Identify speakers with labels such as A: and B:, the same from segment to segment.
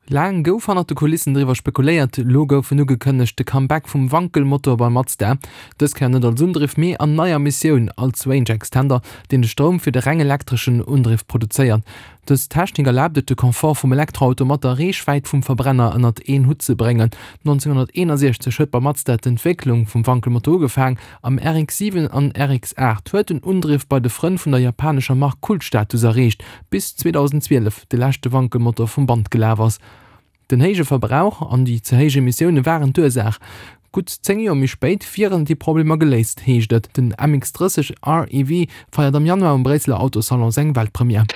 A: Laang gouf hannert de Kulissen driwwer spekuléiert, elo gouf en ugekënnegt, de Comeback vum Wankelmotor bei Mazda. Dës Kéier net als Undriff, mee an neier Missioun, als Range Extender, deen de Stroum fir de reng elektreschen Undriff produzéiert. Dës Technik erlaabt et, de Confort vum Elektroauto mat der Reechwäit vum Verbrenner ënnert een Hutt ze bréngen. 1961 huet bei Mazda d'Entwécklung vum Wankelmotor ugefaang. Am RX-7 an RX-8 huet den Undriff bei de Frënn vun der japanescher Mark Kultstatus erreecht, bis 2012 de leschte Wankelmotor vum Band gelaf ass. Den héije Verbrauch an déi ze héich Emissioune waren d'Ursaach. Gutt 10 Joer méi spéit wieren déi Problemer geléist, heescht et. Den MX-30 REV feiert am Januar um Bréisseler Autosalon seng Weltpremière.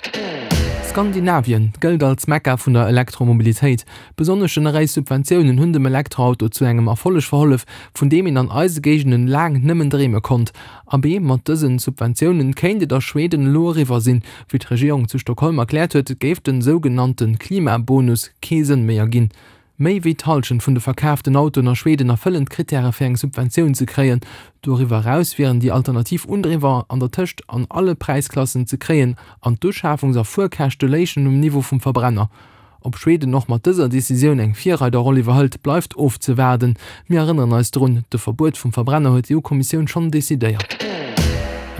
A: Skandinavien gëllt als Mekka vun der Elektromobilitéit. Besonnesch generéis Subventiounen hunn dem Elektroauto zu engem Erfolleg verhollef, vun deem een an eise Géigenden laang nëmmen dreeme konnt. Abee, mat dësen Subventiounen kéint et a Schweden elo eriwwer sinn. Wéi d'Regierung zu Stockholm erkläert huet, géif den sougenannte Klimabonus kee Sënn méi erginn. Méi wéi d'Hallschent vun de verkaaften Autoen a Schweden erfëllen d'Krittäre fir eng Subventioun ze kréien. Doriwwer eraus wieren déi alternativ Undriwwer an der Tëscht an alle Präisklassen ze kréien an d'Uschaafungs a Fuerkäschte léichen um Niveau vum Verbrenner. Ob Schweden och mat dëser Decisioun eng Virreiderroll iwwerhëlt, bleift ofzewaarden. Mir erënneren eis drun, De Verbuet vum Verbrenner huet d'EU-Kommissioun schonn decidéiert.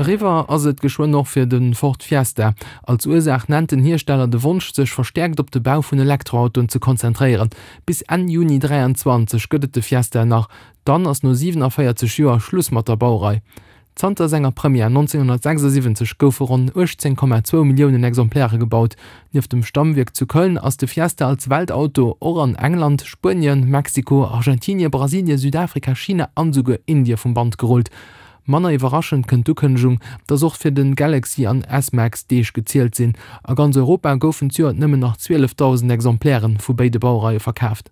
A: Eriwwer ass et geschwënn och fir de Ford Fiesta. Als Ursaach nennt den Hiersteller de Wonsch, sech verstäerkt op de Bau vun Elektroautoen ze konzentréieren. Bis Enn Juni 23 gëtt et de Fiesta nach, dann ass no 47 Joer Schluss mat der Baurei. Zanter senger Première 1976 goufe ronn 18,2 Milliounen Exemplaire gebaut. Nieft dem Stammwierk zu Köln ass de Fiesta als Weltauto och an England, Spuenien, Mexiko, Argentinie, Brasilie, Südafrika, China an esouguer Indie vum Band gerullt. Manner iwwerraschend kënnt d'Ukënnegung, dass och fir de Galaxy an S-Max d'Deeg gezielt sinn. A ganz Europa goufen d'Joert nëmmen nach 12.000 Exemplaire vu béide Baureie verkaaft.